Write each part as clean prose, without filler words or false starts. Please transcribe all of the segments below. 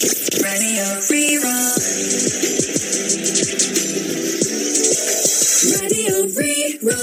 Radio Rí-Rá. Radio Rí-Rá.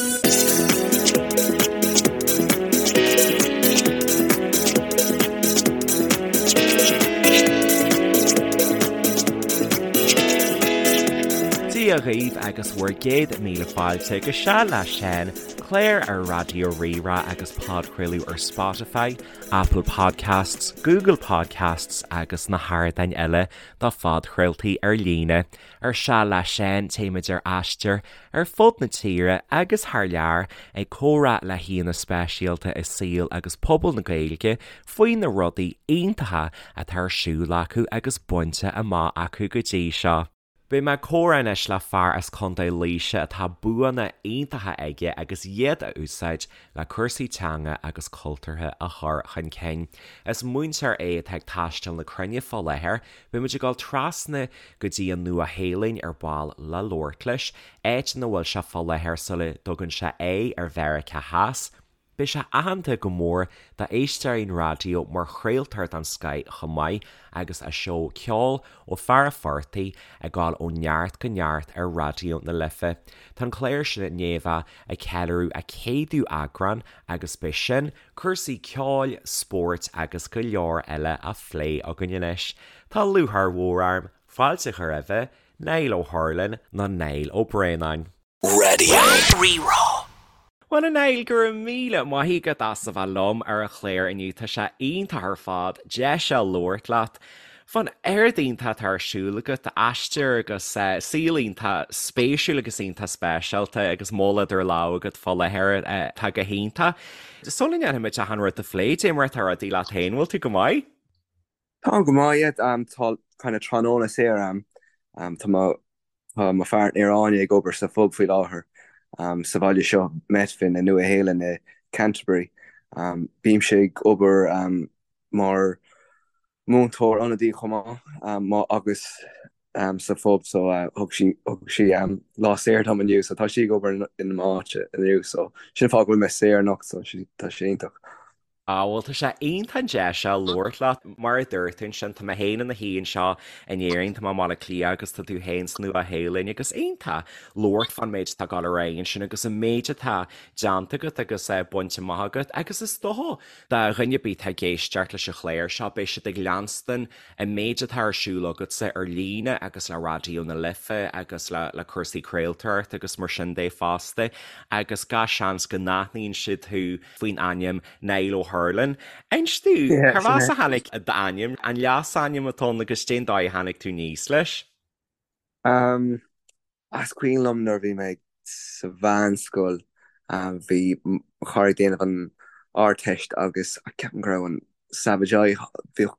Dia dhaoibh agus bhur gcéad míle fáilte go Seal le Seán, clár ar Raidió Rí-Rá agus podchraoladh ar Spotify, Apple Podcasts, Google Podcasts agus na hardáin eile do phodchraoltaí ar líne. Ar Seal le Seán téimid ar aistear ar fud na tíre agus thar lear ag comhrá le haíonna speisialta i saol agus pobal na Gaeilge faoi na rudaí iontacha atá ar siúl acu agus bainte amach acu go dtí seo. Beidh mé ag comhrá anois le fear as Contae Laoise atá buanna iontacha aige agus iad a úsáid le cúrsaí teanga agus cultúrtha a chur chun cinn. Is múinteoir é atá ag taisteal na cruinne fá láthair. Beidh muid ag dul trasna go dtí an Nua-Shéalainn ar ball le labhairt leis, áit ina bhfuil sé fá láthair sula dtugann sé aghaidh ar Mheiriceá Theas. Beidh sé aitheanta go mór d'éisteoirí an raidió mar chraoltóir den scoith chomh maith agus a seó Ceol ó Fear a' Phortaigh ag dul ó neart go neart ar Raidió na Life. Tá an clár sin i ndiaidh a bheith ag ceiliúradh a céadú eagrán agus beidh sin, cúrsaí ceoil, spóirt agus go leor eile á phlé againn anois. Tá lúcháir mhór orm fáilte a chur roimhe, Niall Ó hUrlain nó Niall Ó Braonáin. Radio Rí-Rá. Bhuel a Niall, go raibh míle maith agat as a bheith liom ar an chlár inniu, tá sé iontach ar fad deis a labhairt leat fán oiread iontach atá ar siúl agat, aistear agus saol iontach spéisiúil agus iontach speisialta agus moll idir lámha agat fá láthair atá go hiontach. Sula ndéanfaimid achan rud a phlé, dé mar atá rudaí leat féin, bhfuil tú go maith? Táim go maith, yeah. Tá kind of tráthnóna saor a'm. Tá mo tá mo pháirtnéir Áine ag obair sa phub faoi láthair sa bhaile seo, Methven i Nua Shéalainn i Canterbury. Bímse ag obair mar mhúinteoir ionadaí chomh maith agus sa phub so thug sí thug sí lá saor dom inniu so tá sí ag obair in m'áit inniu so sin an fáth go bhfuil mé saor anocht so tá sé iontach. Á, bhuel, tá sé iontach an deis seo labhairt leat. Mar a dúirt tú ansin, tá mé féin i mo shuí anseo in Éirinn, tá mé i mBaile Átha Cliath agus tá tú féin sa Nua-Shéalainn agus iontach labhairt fán méid atá ag dul ar aghaidh ansin agus an méid atá déanta agat agus bainte amach agat agus is dócha do dhuine ar bith atá ag éisteacht leis an chlár seo, beidh siad ag leanstan an méid atá ar siúl agatsa ar líne agus le Raidió na Life agus le le cúrsaí craoltóireachta agus mar sin de fosta agus gach seans go n-aithníonn siad thú faoin ainm Niall Ó hUrlain. Inis domh, Yeah, cárb sin as é. a tháinig d'ainm, an leasainm atá ann agus cén dóigh a tháinig tú aníos leis? Um, is cuimhin liom nuair a bhí mé sa mheánscoil, um, bhí mo chara ag déanamh an Ardteist agus ceapaim go raibh an Savage Eye, bhíodh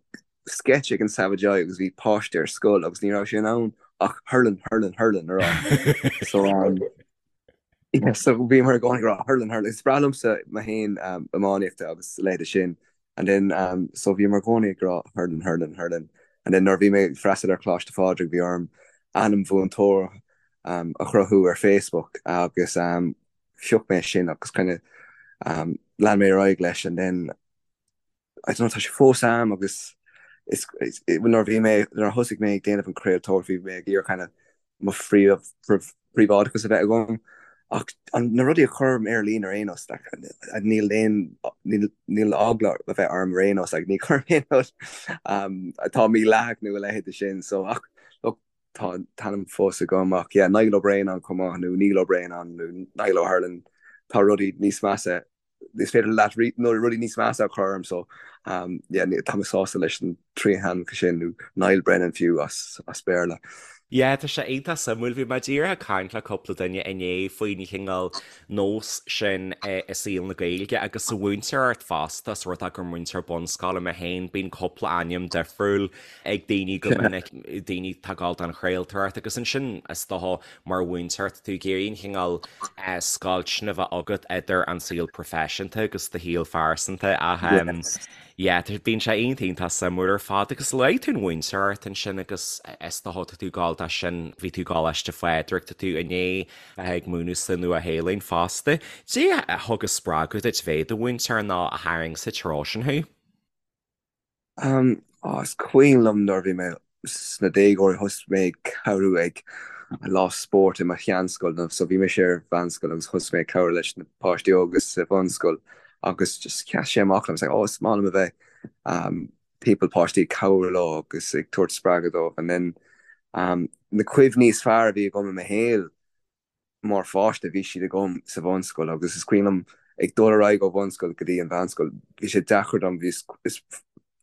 sketch ag an Savage Eye agus bhí páiste ar scoil agus ní raibh sé in ann ach hurlin, hurlin, hurlin a rá. So, um, Yeah, so bhíomar i gcónaí ag rá hurlin hurlin. Is breá liomsa mé féin um, iománaíochta agus a leithéid sin. And then um, so bhíomar i gcónaí ag rá hurlin hurlin hurlin. And then nuair a bhí mé ag freastal ar Choláiste Phádraig bhí orm ainm mhúinteora um, a chruthú ar Facebook agus um, phioc mé sin agus kind of um, lean mé ar aghaidh leis and then I don't know, tá sé fós a'm agus is, is, nuair a bhí mé, nuair a thosaigh mé ag déanamh an craoltóireacht bhí mé ag iarraidh kind of mo phríomh, príobháideachas a bheith agam ach an, na rudaí a chuirim ar líne ar aon nós, like, níl aon, níl, níl eagla a bheith orm ar aon nós, like, ní chuirim aon rud um, atá mídhleathach nó a leithéid de sin, so ach look, tá an t-ainm fós agam ach yeah, Niall Ó Braonáin chomh maith nó Neil Ó Braonáin nó Niall Ó hUrlain, tá rudaí níos measa is féidir leat nó rudaí níos measa a chur orm so um, yeah, tá mé sásta leis an trí hainmneacha sin nó Niall Brennan fiú as, as Béarla. Yeah, tá sé iontach suimiúil. Bhí mé díreach ag caint le cúpla duine inné faoin chineál nós sin i saol na Gaeilge agus sa mhúinteoireacht fosta, ós rud é gur múinteoir bunscoile mé féin, bíonn cúpla ainm difriúil ag daoine go minic, daoine atá ag dul don chraoltóireacht agus ansin is dócha Mar mhúinteoir, tá tú ag iarraidh an chineál scoilt sin a bheith agat idir an saol proifisiúnta agus do shaol phearsanta ach yeah, bíonn sé iontach iontach suimiúil ar fad agus luaigh tú an mhúinteoireacht ansin agus is dócha tá tú ag dul dó sin, bhí tú ag Coláiste Phádraig, tá tú i ndiaidh bheith ag múineadh sa Nua-Shéalainn fosta. Cad é a thug an spreagadh duit bheith i do mhúinteoir nó a tharraing sa treo sin thú? Oh, is cuimhin liom nuair a bhí mé sna déagóirí thosaigh mé ag cabhrú ag lá spóirt i mo sheanscoil so bhí mise ar mheánscoil agus thosaigh mé ag cabhrú leis na páistí óga sa bhunscoil agus just sheas sé amach liom, it's like oh is maith liom a bheith um, timpeall páistí ag cabhrú leo agus ag tabhairt spreagadh dóibh and then um, na cuimhní is fearr a bhí agam i mo shaol Mar pháiste bhí siad agam sa bhunscoil agus is cuimhin liom ag dul ar aghaidh ó bhunscoil go dtí an mheánscoil, bhí sé deacair dom, bhí, is,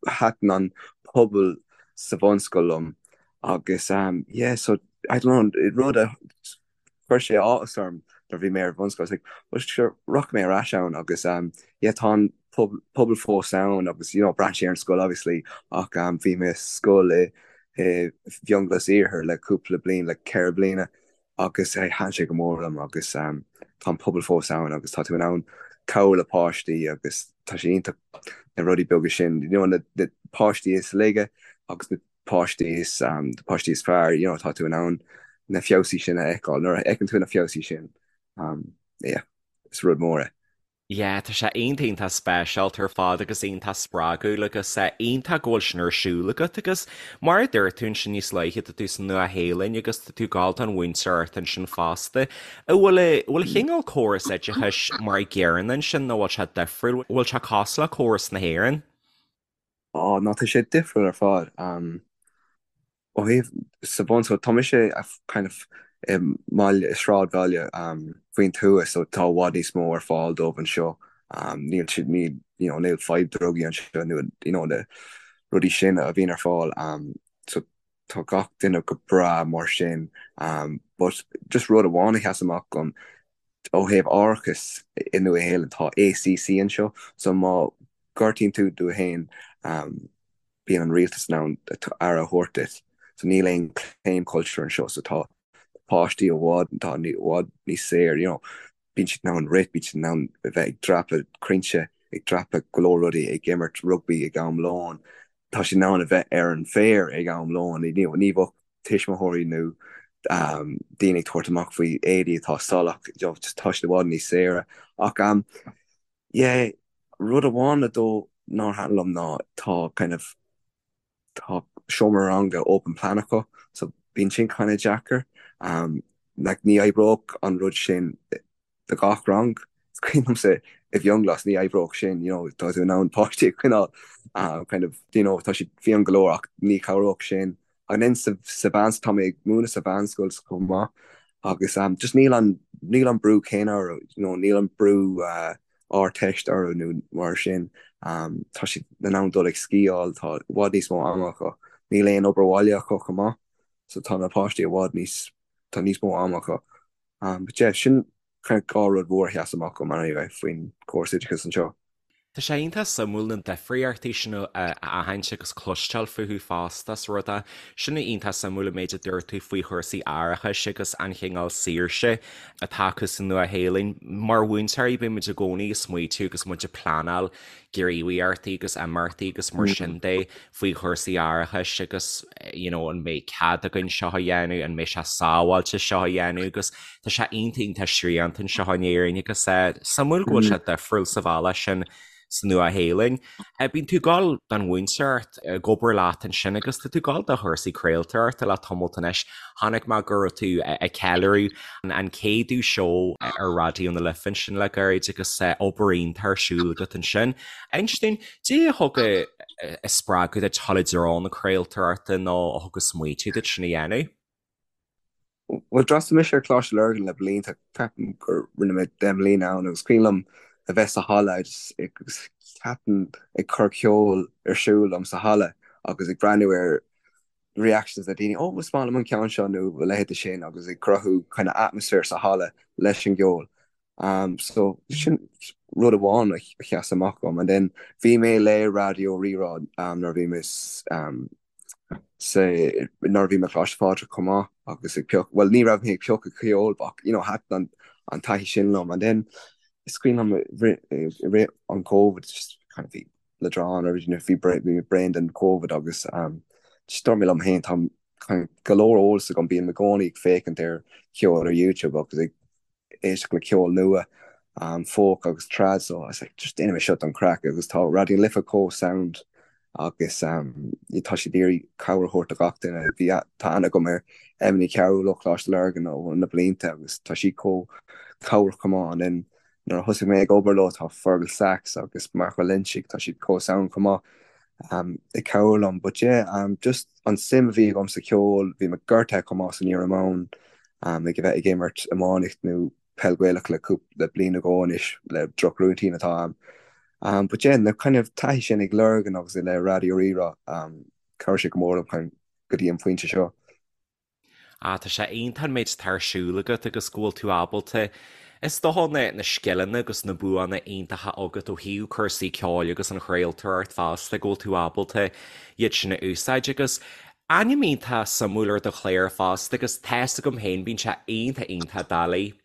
thaitin an pobal sa bhunscoil liom agus um yeah so I don't know, rud a chuir sé áthas orm nuair a bhí mé ar bhunscoil, I was like well sure rachaidh mé ar ais ann agus um yeah tá an pobal fós ann agus you know braitheann sé ar an scoil obviously ach um bhí mé i scoil i i bhFionnghlas Iarthar le cúpla bliain, le 4 bliana agus thaitin sé go mór liom agus tá an pobal fós ann agus tá tú in ann cabhrú le páistí agus tá sé iontach na rudaí beaga sin, you know, na páistí is laige agus na páistí is na páistí is fearr, you know, tá tú in ann na feabhsaí sin a fheiceáil. Nuair a fheiceann tú na feabhsaí sin, yeah, is rud mór é. Yeah, tá sé iontach iontach speisialta ar fad agus iontach spreagúil agus iontach go bhfuil sin ar siúl agat agus mar a dúirt tú ansin níos luaithe tá tú sa Nua-Shéalainn agus tá tú ag gabháil don mhúinteoireacht ansin fosta. An bhfuil a bhfuil a chineál córas oideachais mar a gcéanna ansin nó bhfuil sé difriúil, bhfuil sé cosúil le córas na hÉireann? Á, ná tá sé difriúil ar fad. Ó thaobh sa bhunscoil, tá mise kind of i mbaile, i sráidbhaile faoin tuath so tá i bhfad níos mó ar fáil dóibh anseo. Níl siad, níl, you know, níl fadhb drugaí anseo nó you know na rudaí sin a bhíonn ar fáil. So tá gach duine go breá mar sin. But just rud amháin a sheas amach dom, ó thaobh árachas i Nua Shéalainn, tá ACC anseo so má gortaíonn tú tú féin, bíonn an rialtas in ann aire a thabhairt duit. So níl aon claim culture anseo so tá páistí i bhfad, tá i bhfad níos saor, you know, bíonn siad in ann rith, bíonn siad in ann a bheith ag dreapadh crainnte, ag dreapadh go leor rudaí, ag imirt rugbaí ag am lóin, tá siad in ann a bheith ar an bhféar ag am lóin, you know, ní bheadh tuismitheoirí nó daoine ag tabhairt amach faoi éadaí atá salach, you know, tá siad i bhfad níos saoire. Ach Yeah, rud amháin though nár thaitin liom ná tá kind of, tá seomra ranga open plan acu so bíonn sin kind of deacair. Um, like ní oibreodh an rud sin do gach rang. Is cuimhin liomsa i bhFionnghlas ní oibreodh sin, you know, tá tú in ann páistí a choinneáil uh, kind of, you know, tá siad fiáin go leor ach ní chabhródh sin. And then sa, sa mheán, tá mé ag múineadh sa mheánscoil chomh maith agus um, just níl an, níl an brú céanna orthu, you know, níl an brú uh, Ardteist orthu nó mar sin. Um, tá siad in ann dul ag sciáil, tá i bhfad níos mó ama acu. Níl aon obair bhaile acu chomh maith, so tá na páistí i bhfad níos, tá níos mó ama acu. Um, but yeah, sin kind of dhá rud mhór a sheas amach dom anyway faoin córas oideachais anseo. Tá sé iontach suimiúil na difríochtaí sin a aithint agus cloisteáil fúthu fosta is rud é sin iontach suimiúil an méid a dúirt tú faoi chúrsaí árachais agus an chineál saoirse atá acu sa Nua-Shéalainn. Mar mhúinteoirí bíonn muid i gcónaí ag smaoitiú agus muid ag pleanáil gníomhaíochtaí agus imeachtaí agus mar sin de faoi chúrsaí árachais agus you know an mbeidh cead againn seo a dhéanamh, an mbeidh sé sábháilte seo a dhéanamh agus tá sé iontach iontach srianta anseo in Éirinn agus eh, suimiúil go bhfuil sé difriúil sa bhealach sin sa Nua-Shéalainn. Eh, bíonn tú ag gabháil don mhúinteoireacht ag obair leat ansin agus tá tú ag gabháil do chúrsaí craoltóireachta le tamalt anois. Chonaic mé go raibh tú ag ceiliúradh an céadú seó ar Raidió na Life ansin le gairid agus eh, obair iontach ar siúl agat ansin. Inis dúinn, Cad é a thug an spreagadh duit dul i dtreo na craoltóireachta nó a thug an smaoitiú duit sin a dhéanamh? Bhuel, d'fhreastail mise ar Choláiste Lurgan le blianta, ceapaim gur rinne mé 10 mbliana ann agus cuimhin liom a bheith sa halla agus ceapaim ag cur ceol ar siúl liom sa halla agus ag breathnú ar reactions na daoine, oh is maith liom an ceann seo nó a leithéid de sin agus ag cruthú kind of atmaisféar sa halla leis an gceol. Um, so sin rud amháin a sheas amach dom. And then bhí mé le Raidió Rí-Rá um, nuair a bhí mé um, sa nuair a bhí mé Coláiste Phádraig chomh maith agus ag pioc, well ní raibh mé ag piocadh ceoil ach you know, thaitin an, an taithí sin liom. And then is cuimhin liom i rith an COVID just kind of bhí leadrán or you know, bhí bhí mé bréan den COVID agus um, just dúirt mé liom féin tá kind of go leor eolas agam bím i gcónaí ag féachaint ar cheol ar YouTube agus ag éisteacht le ceol nua, folk agus trad so I was like just déanfaidh mé seo don chraic agus tá Raidió na Life chomh sound. agus tá siad ag iarraidh cabhair a thabhairt do gach duine. Bhí, tá aithne agam ar Emma Ní Chearúil ó Choláiste Lurgan ó na blianta agus tá sí chomh cabhrach chomh maith and then nuair a thosaigh mé ag obair leo tá Fergal Sachs agus Mark Ó Loinsigh, tá siad chomh sound chomh maith ag cabhrú liom. But yeah, just an suim a bhí agam sa cheol, bhí mé gortaithe chomh maith san iomáint ag a bheith ag imirt iománaíocht nó peil Gaelach le cúpla bliain nó dhó anois le drochrúitín atá a'm. Um, but yeah, na kind of taithí sin ag Lurgan agus le Raidió Rí-Rá, um, chabhraigh sé go mór liom chun go dtí an phointe seo. Ah, tá sé iontach an méid atá ar siúl agat agus go bhfuil tú ábalta, is dócha, na, na scileanna agus na buanna iontacha agat ó thaobh cúrsaí ceoil agus an chraoltóireacht fosta, go bhfuil tú ábalta iad sin a úsáid agus Ainm iontach suimiúil ar do chlár fosta agus tá's agam féin bíonn sé iontach iontach doiligh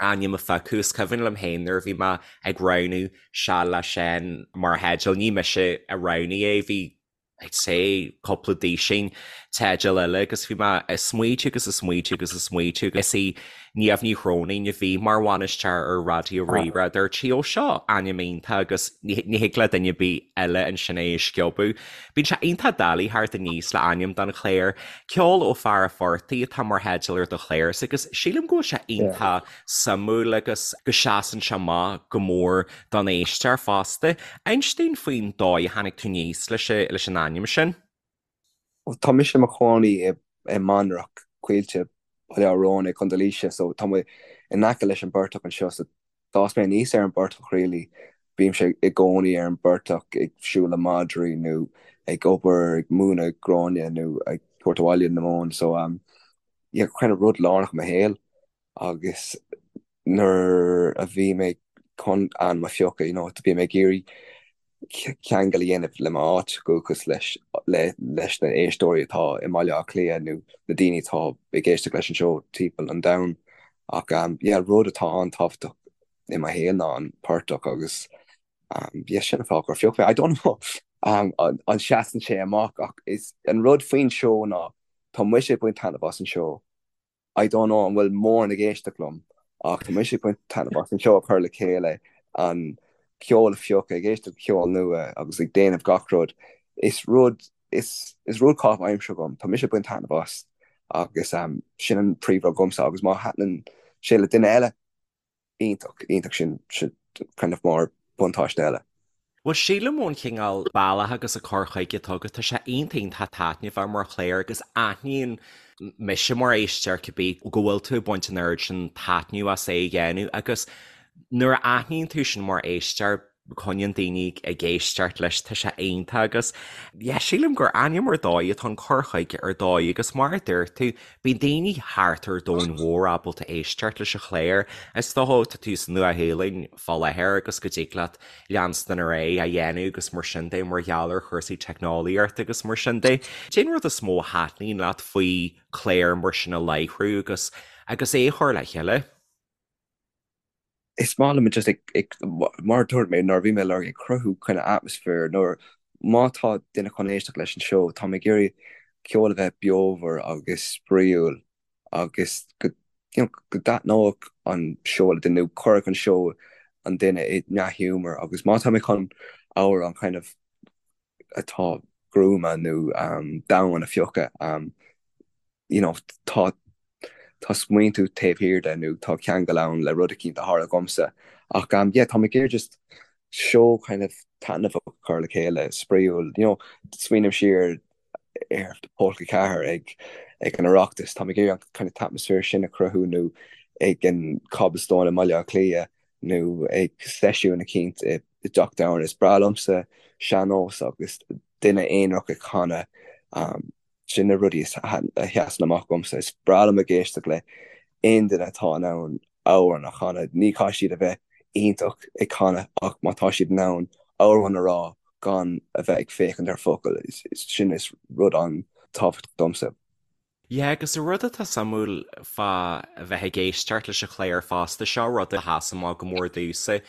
ainm a phiocadh. Is cuimhin liom féin nuair a bhí mé ag roghnú Seal le Seán mar theideal, ní mise a roghnaigh é, bhí I'd say cúpla duisín teideal eile agus bhí mé ag smaoitiú agus ag smaoitiú agus ag smaoitiú agus is í Niamh Ní Chróinín a bhí mar bhainisteoir ar Raidió Rí-Rá, dúirt sí, ó seo ainm iontach agus ní thig le duine ar bith eile ansin é a sciobadh. Bíonn sé iontach doiligh theacht aníos le ainm don chlár. Ceol ó Fear an Phortaigh atá mar theideal ar do chlár agus sílim go bhfuil sé iontach suimiúil agus go seasann sé amach go mór don éisteoir fosta. Inis dúinn faoin dóigh a tháinig tú aníos leis an ainm sin. Tá mise i mo chónaí i mBanrach, Coillte, Baile Átha Róin i gContae Laoise so tá mé in aice leis an bportach anseo so d'fhás mé aníos ar an bportach really. Bímse i gcónaí ar an bportach ag siúl le madraí nó ag obair, ag múineadh gráinne nó ag tabhairt abhaile na móin so um yeah kind of rud lárnach i mo shaol agus nuair a bhí mé chun ainm a phiocadh, you know, bhí mé ag iarraidh ceangal a dhéanamh le m'áit dhúchais, leis leis na éisteoirí atá i mBaile Átha Cliath nó na daoine atá ag éisteacht leis an seó timpeall an domhain. Ach um, yeah, rud atá an-tábhachtach i mo shaol ná an portach agus um, yeah, sin an fáth gur phioc mé. I don't know um, an, an seasann sé amach ach is an rud faoin seó ná tá mise ag baint taitneamh as an seó I don't know an bhfuil mórán ag éisteacht liom ach tá mise ag baint taitneamh as an seó a chur le chéile, an ceol a phiocadh, ag éisteacht le ceol nua agus ag déanamh gach rud. Is rud, is, is rud caitheamh aimsire agam, tá mise ag baint taitneamh as agus sin an príomhrud dhomsa agus má thaitníonn sé le duine eile, iontach, iontach sin, sin kind of mar buntáiste eile. Bhuel, sílim ón chineál bealach agus an cur chuige atá agat, tá sé iontach iontach taitneamhach mar chlár agus aithníonn mise mar éisteoir cibé go bhfuil tú ag baint an oiread sin taitneamh as é a dhéanamh agus nuair a aithníonn tú sin mar éisteoir, coinníonn daoine ag éisteacht leis, tá sé iontach agus yeah, sílim gur ainm ar dóigh atá an cur chuige ar dóigh agus mar a dúirt tú, bíonn daoine thart ar domhan mhór ábalta éisteacht leis an chlár. Is dócha tá tú sa Nua-Shéalainn fá láthair agus go dtig leat leanstan ar aghaidh á dhéanamh agus mar sin de mar gheall ar chúrsaí teicneolaíochta agus mar sin de. Cén rud is mó a thaitníonn leat faoi chlár mar sin a láithriú agus agus é a chur le chéile? Is maith liom just ag, mar a dúirt mé nuair a bhí mé ag lorg ag cruthú kind of atmosphere nuair má tá duine chun éisteacht leis an seó tá mé ag iarraidh ceol a bheith beomhar agus spraíúil agus go you know go dtaitneodh an seó le duine nó cuirfeadh an seó an duine i ndea-ghiúmar agus má tá mé chun amhrán kind of atá gruama nó domhain a phiocadh you know tá tá smaointiú taobh thiar de nó tá ceangal ann le rud eicínt a tharla dhomsa ach um yeah tá mé ag iarraidh just seó kind of taitneamhach a chur le chéile spraíúil you know smaoiním siar ar Pólca 4 ag ag an Oireachtas tá mé ag iarraidh an kind of t-atmaisféar sin a chruthú nó ag an Cobblestone i mBaile Átha Cliath nó ag seisiún eicínt i dTeach Domhain is breá liomsa sean-nós agus duine aonarach ag canadh um Sin na rudaí a sheasann amach dhomsa. Is breá liom ag éisteacht le aon duine atá in ann amhrán a chanadh. Ní chaithfidh siad a bheith iontach ag canadh ach má tá siad in ann amhrán a rá gan a bheith ag féachaint ar focail, sin is rud an-tábhachtach domsa. Yeah, agus an rud atá suimiúil fá a bheith ag éisteacht leis an chlár fosta, seo rud a sheas amach go mór domhsa.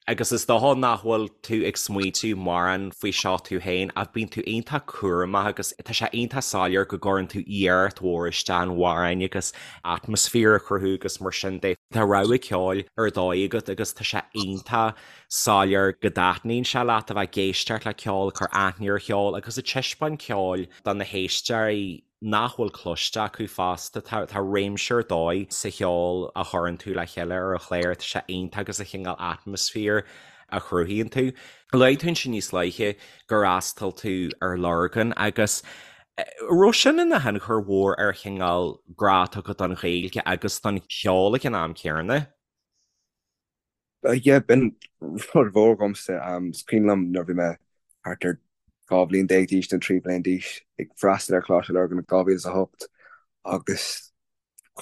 Agus is dócha nach bhfuil tú ag smaointiú mórán faoi seo tú féin ach bíonn tú iontach cúramach agus tá sé iontach soiléir go gcuireann tú iarracht mhór isteach in amhráin agus atmaisféar a chruthú agus mar sin de. Tá rogha ceoil ar dóigh agat agus tá sé iontach soiléir go dtaitníonn sé leat a bheith ag éisteacht le ceol, ag cur aithne ar cheol agus ag taispeáint ceoil do na héisteoirí. nach bhfuil cloiste acu fosta. Tá réimse ar dóigh sa cheol a chuireann tú le chéile ar an chlár, tá sé iontach agus an cineál atmaisféar a chruthaíonn tú. Luaigh tú ansin níos luaithe gur fhreastail tú ar Lurgan agus raibh sin ina thionchar mhór ar chineál grá atá agat don Ghaeilge agus don cheol ag an am céanna? Yeah, b'in rud mhór dhomsa. Is cuimhin liom nuair a bhí mé thart ar 12 bhliain d'aois nó 13 bhliain d'aois ag freastal ar Choláiste Lurgan in 2008 agus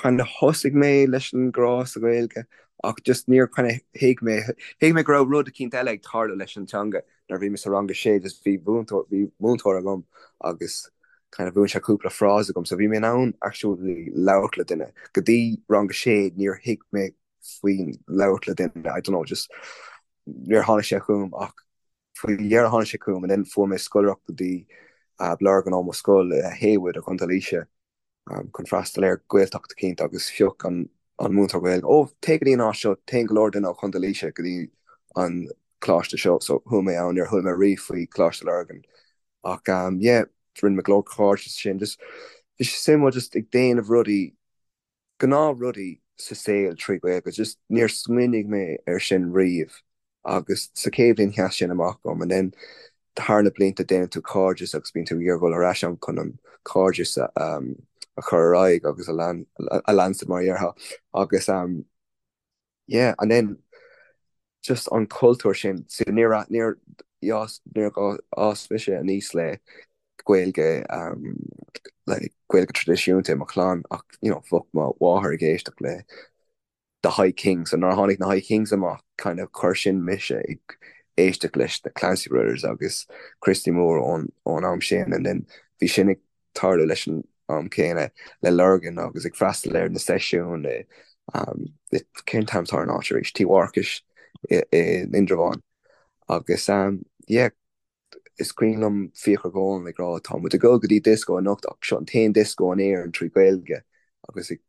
kind of thosaigh mé leis an grá sa Ghaeilge ach just níor kind of thuig mé, thuig mé go raibh rud eicínt eile ag tarlú leis an teanga nuair a bhí mé sa rang a sé just bhí mhúinteoir, bhí múinteoir agam agus kind of mhúin sé cúpla frása dhom so bhí mé in ann actually labhairt le duine. Go dtí rang a sé níor thuig mé faoin labhairt le duine, I don't know, just níor tháinig sé chugam ach faoi dheireadh tháinig sé chugam and then fuair mé scoláireacht go dtí Lurgan ó mo scoil i Heywood i gContae Laoise chun freastal ar Ghaeltacht eicínt agus phioc an an múinteoir Gaeilge, oh téigh go dtí an áit seo, téann go leor duine ó Chontae Laoise go dtí an coláiste seo so chuaigh mé ann, níor chuala mé riamh faoi Choláiste Lurgan ach yeah rinne mé go leor cairde sin, just bhí sé suimiúil just ag déanamh rudaí gnáth rudaí sa saol trí Ghaeilge, just níor smaoinigh mé ar sin riamh agus sa chéad bhliain sheas sin amach dom and then thar na blianta déanann tú cairdeas agus bíonn tú ag iarraidh dul ar ais ann chun an cairdeas a a chur ar aghaidh agus a lean a leanstan mar a dhéarfá agus um Yeah and then just an cultúr sin so níor níor níor fhás mise aníos le Gaeilge um le Gaeilge traidisiúnta i mo chlann ach you know bheadh mo mháthair ag éisteacht le The High Kings so nuair a tháinig na High Kings amach kind of chuir sin mise ag éisteacht leis na Clancy Brothers agus Christy Moore ón ón am sin and then bhí sin ag tarlú leis an am céanna le Lurgan agus ag freastal ar na seisiúin i cén t-ainm atá ar an áit arís, Tí Mharcais i Indreabhán agus yeah is cuimhin liom Fiachra Golan ag rá tá muid ag dul go dtí disco anocht ach seo an t-aon disco in Éirinn trí Ghaeilge agus ag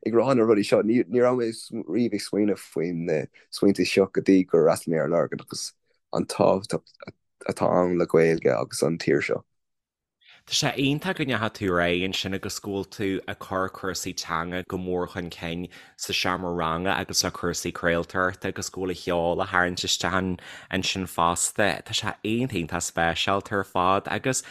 ag rá na rudaí seo ní raibh mé riamh ag smaoineamh faoin na smaointe seo go dtí gur fhreastail mé ar Lurgan agus an tábhacht atá ann le Gaeilge agus an tír seo. Tá sé iontach go ndeachaigh tú ar aghaidh ansin agus go bhfuil tú ag cur cúrsaí teanga go mór chun cinn sa seomra ranga agus le cúrsaí craoltóireachta agus go bhfuil an ceol á tharraingt isteach ansin fosta. Tá sé iontach iontach speisialta ar fad agus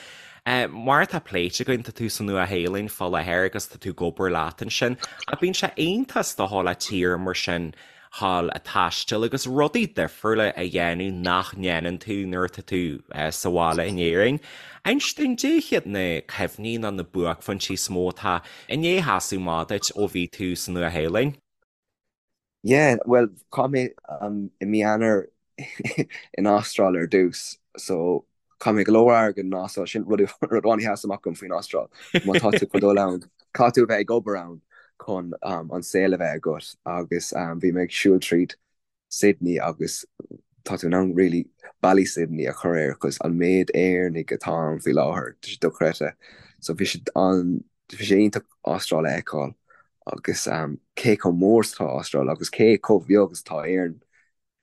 mar atá pléite againn tá tú sa Nua-Shéalainn fá láthair agus tá tú ag obair leat ansin ach bíonn sé iontach is dócha le tír mar sin dhul ag taisteal agus rudaí difriúla a dhéanamh nach ndéanann tú nuair atá tú sa bhaile in Éirinn. Inis dúinn, cad iad na cuimhní nó na buaicphointí is mó atá i ndiaidh sheasamh amach duit ó bhí tú sa Nua-Shéalainn? Yeah, bhuel, chaith mé i mí Eanáir in Astráil ar dtús, so Chaith mé go leor airgid in Astráil, sin rud rud amháin a sheas amach dom faoin Astráil. Má tá tú chun dul ann, caithfidh tú a bheith ag obair ann chun an saol a bheith agat agus bhí mé ag siúl tríd Sydney agus tá tú in ann really ballaí Sydney a chur air cos an méid Éireannaigh atá ann faoi láthair, tá sé dochreidte. So bhí sé an bhí sé iontach Astráil a fheiceáil agus cé chomh mór is atá Astráil agus cé chomh beag is atá Éirinn.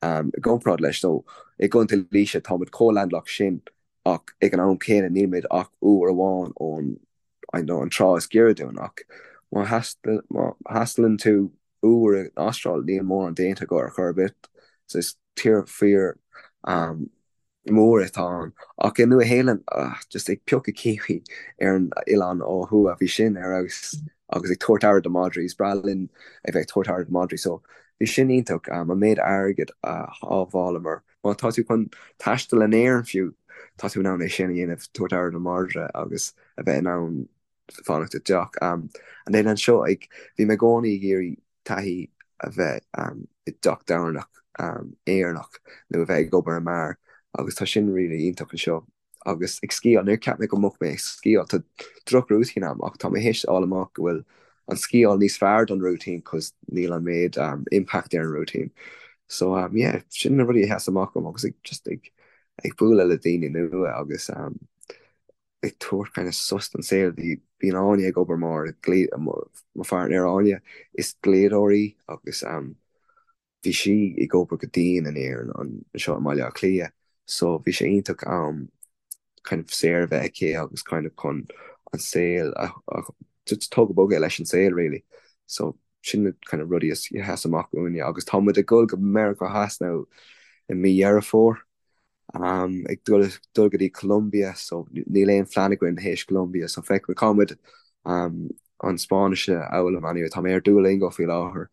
I gcomparáid leis, so i gContae Laoise táimid chomh landlocked sin ach ag an am céanna nílimid ach uair amháin ón I know an trá is giorra dúinn ach má thaistealann tú uair in Astráil níl mórán déanta agat ar chor ar bith so is tír fíor mór atá ann. Ach i Nua Shéalainn, just ag piocadh kiwi ar an oileán ó thuaidh, bhí sin ar fheabhas agus ag tabhairt aire do madraí, is breá linn a bheith ag tabhairt aire do madraí so bhí sin iontach, an méid airgid a shábhálamar. Má tá tú chun taisteal in Éirinn fiú, tá tú in ann é sin a dhéanamh, tabhairt aire do mhadra agus a bheith in ann fanacht i dteach. And then anseo, ag, bhí mé i gcónaí ag iarraidh taithí a bheith i dteach tábhairne Éireannach nó a bheith ag obair i mbeár agus tá sin really iontach anseo. Agus ag sciáil, níor cheap mé go mbeadh mé ag sciáil, tá droch-rúitín agam ach tá mé théis fháil amach go bhfuil an sciáil níos fearr don rúitín cos níl an méid impact ar an rúitín. So um yeah, sin na rudaí a sheas amach dom agus ag just ag ag bualadh le daoine nua agus um ag tabhairt kind of sos don saol. Bhí bíonn Áine ag obair mar dhlí mo pháirtnéir Áine, is dlíodóir í agus um bhí sí ag obair go dian in Éirinn anseo i mBaile Átha Cliath so bhí sé iontach am kind of saor a bheith aici agus kind of chun an saol a just tógadh bogadh leis an saol really. So sin na kind of rudaí a sheas amach uainne agus tá muid ag dul go Meiriceá Theas now i mí Dheireadh Fómhair um, ag dul dul go dtí Colombia so níl aon phlean againn théis Colombia so feicfidh cá muid um, an Spáinnis a fhoghlaim anyway tá mé ar Duolingo faoi láthair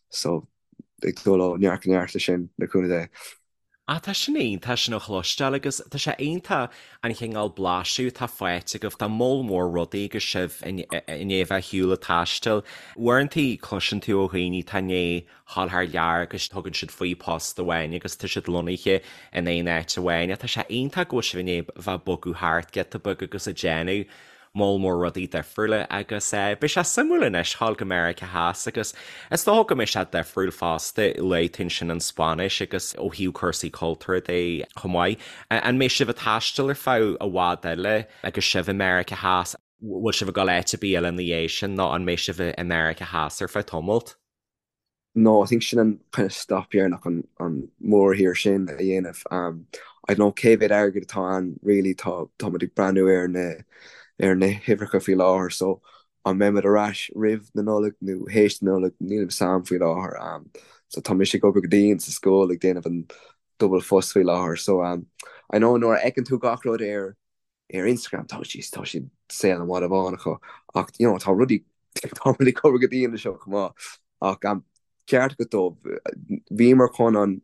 so ag dul ó neart go neart leis sin le cúnamh Dé. Ah tá sin iontach sin a chloisteáil agus tá sé iontach an chineál blaiseadh atá faighte agaibh de moll mór rudaí agus sibh i ndiaidh a bheith ar shiúl ag taisteal. Uaireantaí cloiseann tú ó dhaoine atá i ndiaidh dhul thar lear agus tugann siad faoi post amháin agus tá siad lonnaithe in aon áit amháin. Tá sé iontach go bhfuil sibh i ndiaidh a bheith ag bogadh thart giota beag agus ag déanamh moll mór rudaí difriúla agus beidh sé suimiúil anois dhul go Meiriceá Theas agus is dócha go mbeidh sé difriúil fosta, luaigh tú ansin an Spáinnis agus ó thaobh cúrsaí cultúrtha de chomh maith. An mbeidh sibh ag taisteal ar feadh i bhfad eile agus sibh i Meiriceá Theas? Bhfuil sibh ag dul áit ar bith eile ina dhiaidh sin nó an mbeidh sibh i Meiriceá Theas ar feadh tamalt? No, I think sin an kind of stop dheireanach an an mórthír sin a dhéanamh. Um, I don't know cé mhéad airgead atá ann really tá tá muid ag breathnú ar na ar na huimhreacha faoi láthair so an mbeidh muid ar ais roimh na Nollag nó théis na Nollag níl a fhios a'm faoi láthair. Um, so tá mise ag obair go dian sa scoil ag déanamh an double phost faoi láthair so um, I know nuair a fheiceann tú gach rud ar ar Instagram tá siad tá siad saol an mhadaidh bháin acu ach you know tá rudaí tá rudaí ag obair go dian anseo chomh maith ach um, ceart agat dó bhíomar chun an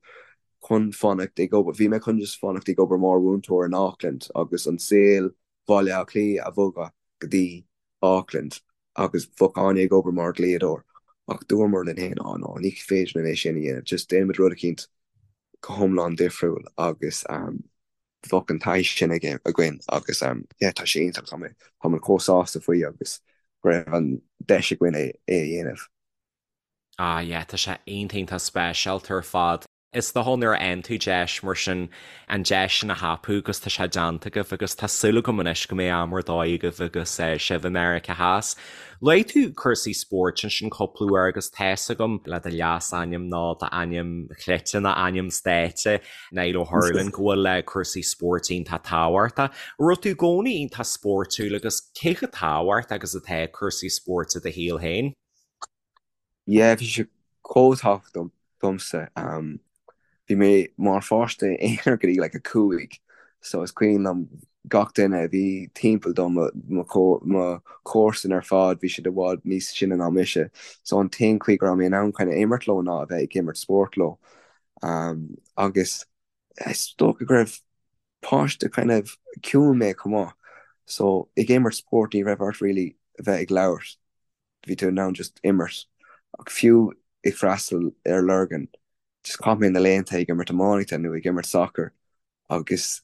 chun fanacht ag obair bhí mé chun just fanacht ag obair mar mhúinteoir in Auckland agus an saol Bhaile Átha Cliath a bhogadh go dtí Auckland agus bheadh Áine ag obair mar dhlíodóir ach dúramar linn féin á no ní féidir linn é sin a dhéanamh just déanaimid rud eicínt go hiomlán difriúil agus um, bheadh an taithí sin aige againn agus yeah tá sé iontach, tá mé tá mé chomh sásta faoi agus go raibh an deis againn é é a dhéanamh. Ah yeah tá sé iontach iontach speisialta ar fad. Is dócha nuair a fhaigheann tú deis mar sin an deis sin a thapú agus tá sé déanta agaibh agus tá súil agam anois go mbeidh am ar dóigh agaibh agus sibh i Meiriceá Theas. Luaigh tú cúrsaí spóirt ansin cúpla uair agus tá's agam le do leasainm nó d'ainm cleite nó ainm stáitse Niall Ó hUrlain, go bhfuil cúrsaí spóirt iontach tábhachtach. An raibh tú i gcónaí iontach spóirtiúil agus cé chomh tábhachtach agus atá cúrsaí spóirt i do shaol féin? Yeah, bhí sé chomh tábhachtach domsa. Bhí mé mar pháiste aonair go dtí like 5, so is cuimhin liom gach duine a bhí timpeall dom, mo chomharsain ar fad, bhí siad i bhfad níos sine ná mise, so an t-aon chaoi go raibh mé in ann kind of imirt leo ná a bheith ag imirt spóirt leo. Agus is dócha go raibh páiste kind of ciúin mé chomh maith so ag imirt spóirt ní raibh ort really a bheith ag labhairt, bhí tú in ann just imirt. Ach fiú ag freastal ar Lurgan just chaith mé na laethanta ag imirt iománaíochta nó ag imirt sacair agus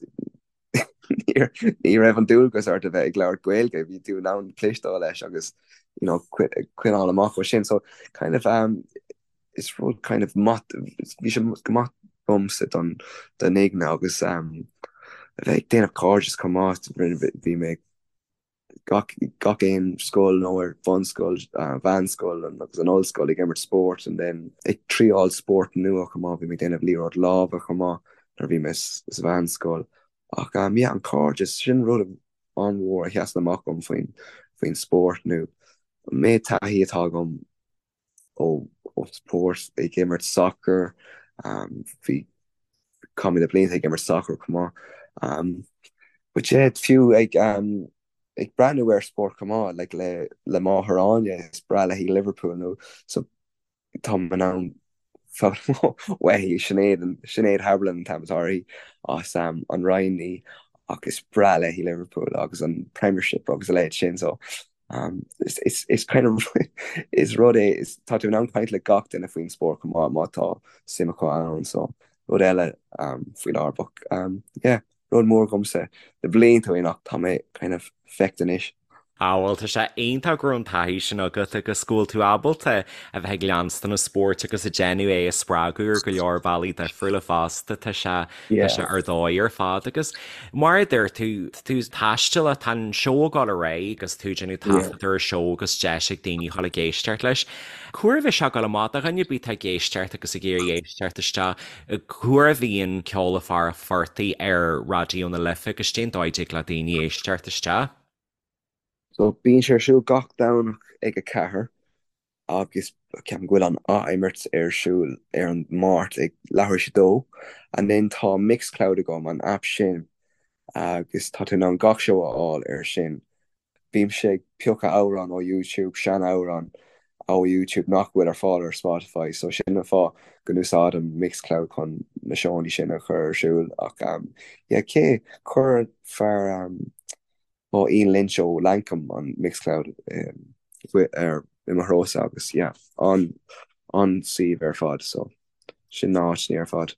ní raibh an dualgas ort a bheith ag labhairt Gaeilge, bhí tú in ann cloisteáil leis agus you know coinneáil amach ó sin. So kind of um, is rud kind of maith, bhí sé go maith domsa don don aigne agus um, a bheith ag déanamh cairdeas chomh maith, bhí mé gach gach aon scoil nó ar bhunscoil, mheánscoil agus an ollscoil ag imirt spóirt and then ag triáil spórt nua chomh maith, bhí mé ag déanamh liathróid láimhe chomh maith nuair a bhí mé sa mheánscoil. Ach um yeah an cairdeas, sin rud an-mhór a sheasann amach dom faoin faoin spórt nó an méid taithí atá agam ó spórt ag imirt sacair, bhí chaith mé na blianta ag imirt sacair chomh maith. But yeah, fiú ag ag breathnú ar spórt chomh maith, like le le máthair Áine, is breá léi Liverpool nó so tá mé in ann foghlaim uaithi, Sinéad, Sinéad Haberlin an t-ainm atá uirthi as an Rinn í ach is breá léi Liverpool agus an Premiership agus a leithéid sin so Is is kind of is rud é is tá tú in ann caint le gach duine faoin spórt chomh maith má tá suim acu ann so rud eile faoi láthair but yeah rud mór dhomsa le blianta ó shin ach tá mé kind of feicthe anois. Á bhuel tá sé iontach go raibh an taithí sin agat agus go bhfuil tú ábalta a bheith ag leanstan an spóirt agus ag déanamh é a spreagadh ar go leor bealaí difriúla fosta. Tá sé tá sé ar dóigh ar fad agus mar a deir tú, tá tú ag taisteal, tá an seó ag dul ar aghaidh agus tú ag déanamh taifead ar an seó agus deis ag daoine dhul ag éisteacht leis. Cá huair a bheidh sé ag dul amach do dhuine ar bith atá ag éisteacht agus ag iarraidh éisteacht isteach, cá huair a bhíonn Ceol le Fear an Phortaigh ar Raidió na Life agus cén dóigh a dtig le daoine éisteacht isteach? So bíonn sé ar siúl gach Domhnach ag 4 agus ceapaim go bhfuil an ath-imirt ar siúl ar an Máirt ag leathuair tar éis a dó. And then tá Mixcloud agam, an app sin, agus tá tú in ann gach seó a fháil ar sin. Bímse ag piocadh amhrán ó YouTube, sean-amhrán ó YouTube nach bhfuil ar fáil ar Spotify, so sin an fáth go n-úsáidim Mixcloud chun na seónna sin a chur ar siúl. Ach yeah, cé, chuir fear ó Ian Lynch ó Lankum an Mixcloud ar i mo threosa agus yeah, an an-suíomh ar fad, so sin na háiteanna ar fad.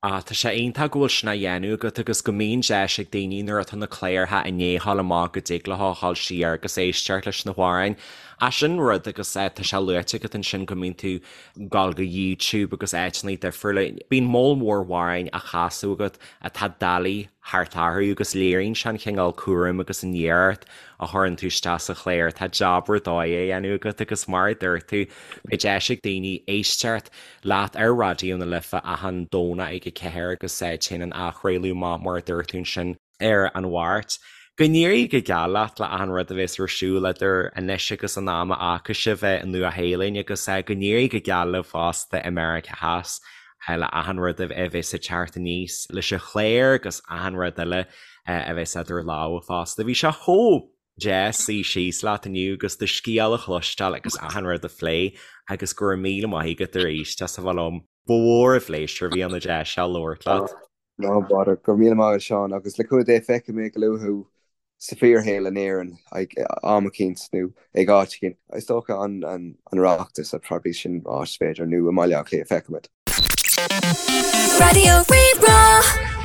Ah, tá sé iontach go bhfuil sin á dhéanamh agat agus go mbíonn deis ag daoine nuair atá na cláracha i ndiaidh a ghabháil amach go dtig leo a dhul siar agus éisteacht leis na hamhráin. Ah, sin rud agus tá sé luaite agat ansin go mbíonn tú ag dul go YouTube agus áiteanna difriúla. Bíonn moll mór amhráin á chasadh agat atá doiligh thart orthu agus léiríonn sé an chineál cúraim agus an iarracht a chuireann tú isteach sa chlár. Tá jab ar dóigh á dhéanamh agat agus mar a dúirt tú, beidh deis ag daoine éisteacht leat ar Raidió na Life achan Domhnach ag 4 agus téann an athchraoladh amach mar a dúirt tú ansin ar an Mháirt. Go n-éirí go geal leat le achan rud a bheas ar siúl idir anois agus an am a fhágfaidh sibh an Nua-Shéalainn agus go n-éirí go geal libh fosta i Meiriceá Theas le achan rud a bheas ag teacht aníos leis an chlár agus achan rud eile a bheas idir lámha fosta. Bhí sé chomh deas suí síos leat inniu agus do scéal a chloisteáil agus achan rud a phlé agus go raibh míle maith agat arís as a bheith liom. Ba mhór an phléisiúr a bhí ann an deis seo labhairt leat. No bother. Go raibh míle maith agat Seán agus le cúnamh Dé feicfidh mé go luath thú sa fíorshaol in Éirinn ag am eicínt nó ag áit eicínt. Is dócha an an Oireachtas probably sin áit b'fhéidir nó i mBaile Átha Cliath feicfimid. Raidió Rí-Rá.